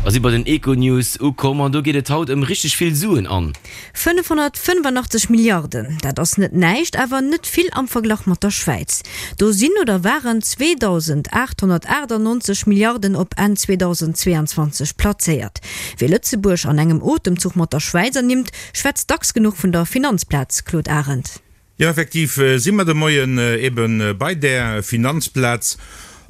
A si bei den Econews ukomm an do geet et haut ëm richteg vill Suen an. 585 Milliarden, dat ass net näischt, awer net vill am Verglach mat der Schwäiz. Do sinn oder waren 2.898 Milliarden op Enn 2022 plazéiert. Wie Lëtzebuerg an engem Otemzuch mat der Schwäiz ernimmt, schwätzt dacks genuch vun der Finanzplaz, Claude Arend. Jo, effektiv si mer de Moien ebe bei där Finanzplaz,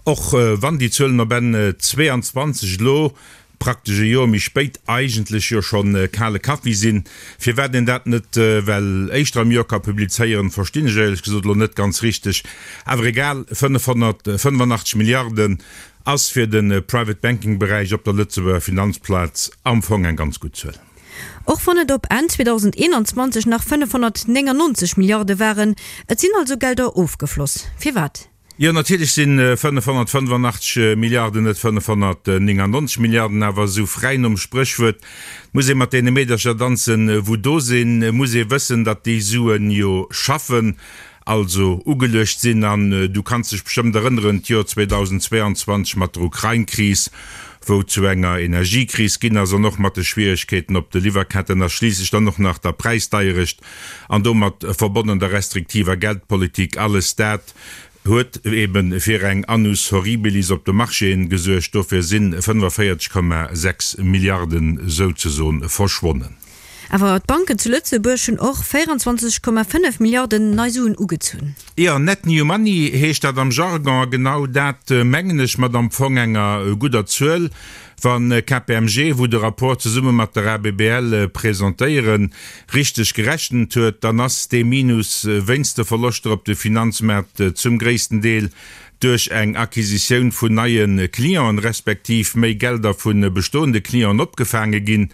och wann déi Zuelen op Enn 22 elo, praktesch e Joer méi spéit, eigentlech jo scho kale Kaffi sinn. Firwat een dat net well éischter am Joer ka publizéieren, verstinn ech éierlech gesot elo net ganz richteg. Awer egal, 585 Milliarden ass fir de Private Banking Beräich op der Lëtzebuerger Finanzplaz am Fong eng ganz gutt Zuel. Och wann et op Enn 2021 nach 599 Milliarde waren. Et sinn also Gelder ofgefloss. Firwat? Jo, natierlech si 585 Milliarden net 599 Milliarden, awer esou fräi nom Spréchwuert, muss ee mat deene Meedercher danzen, wou do sinn, muss ee wëssen, datt déi Suen jo schaffen. also ugeluecht sinn. An du kanns dech bestëmmt erënneren, d'Joer 2022 mat der Ukrain-Kris, wou et zu enger Energiekris ginn ass, an och mat de Schwieregkeeten op de Liwwerketten a schliisslech dann och nach der Präisdeierecht an domat verbonnen der restriktiver Geldpolitik, alles dat huet eebe fir eng Annus horribilis op de Marchéen gesuergt. Dofir si 45,6 Milliarden souzesoen verschwonnen. Awer d'Banken zu Lëtzebuerg hunn och 24,5 Milliarden nei Suen ugezunn. Jo, net new money heescht dat am Jargon, a genau dat mengen ech mat am Fong enger gudder Zuel. Wa KPMG, wou de Rapport zesumme mat der ABBL presentéieren, richteg gerechent huet, dann ass dee Minus wéinst de Verloschter op de Finanzmaart zum gréissten Deel duerch eng Acquisitioun vun neie Clienten, respektiv méi Gelder vu bestoende Clienten opgefaange ginn.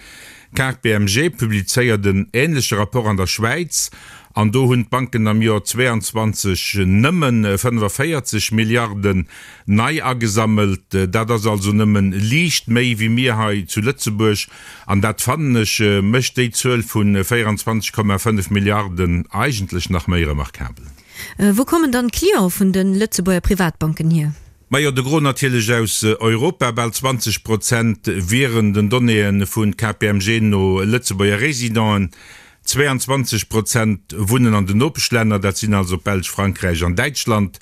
KPMG publizéiert en änleche Rapport an der Schwäiz an do hunn d'Banken am Joer 22 nëmme 45 Milliarden nei agesammelt. Dat ass also nëmme liicht méi wéi mir hei zu Lëtzebuerg an dat, fannen ech, mécht déi Zuel vu 24,5 Milliarden eigentlech nach méi remarkabel. Wou kommen dann d'Cliente vun de Lëtzebuerger Privatbanken hier? Majo, de Gros natierlech aus Europa, bal 20 Prozent wieren den Donnéeë vu KPMG no Lëtzebuerger Residenten, 22 Prozent wunnen an den Nopeschlänner, dat sinn also d'Belsch, Frankräich an Däitschland,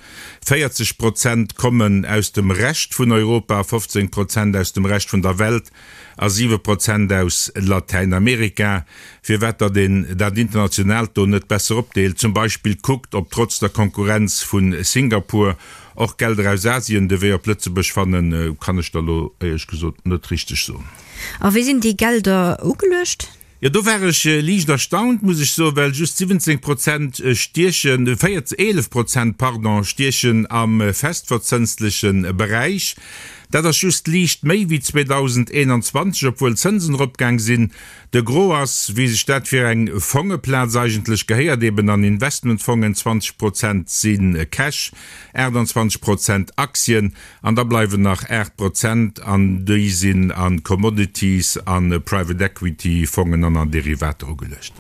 40 Prozent kommen aus dem Rescht vun Europa, 15 Prozent aus dem Rescht vun der Welt a 7 Prozent aus Latäinamerika. Firwat datt een dat Internationaalt do net besser opdeelt, zum Beispill kuckt, ob trotz der Konkurrenz vu Singapur Och Gelder aus Asien de Wee op Lëtzebuerg fannen, kann ech der elo éierlech gesot net richteg soen. A wéi sinn déi Gelder ugeluecht? Jo, do war ech liicht erstaunt, muss ech soen, well just 17 Prozent stiechen, 11 Prozent, pardon, stiechen am festverzënstleche Beräich. Dat ass just liicht méi wéi 2021, obwuel d'Zënsen eropgaang sinn. De Gros ass, wéi sech dat fir eng Fongeplaz eigentlech gehéiert, eben an Investmentfongen, 20 Prozent si Cash, 28 Prozent Aktien an da bleiwen nach 8 Prozent an déi sinn a Commodities, a Private Equity Fongen an an Derivater ugeluecht.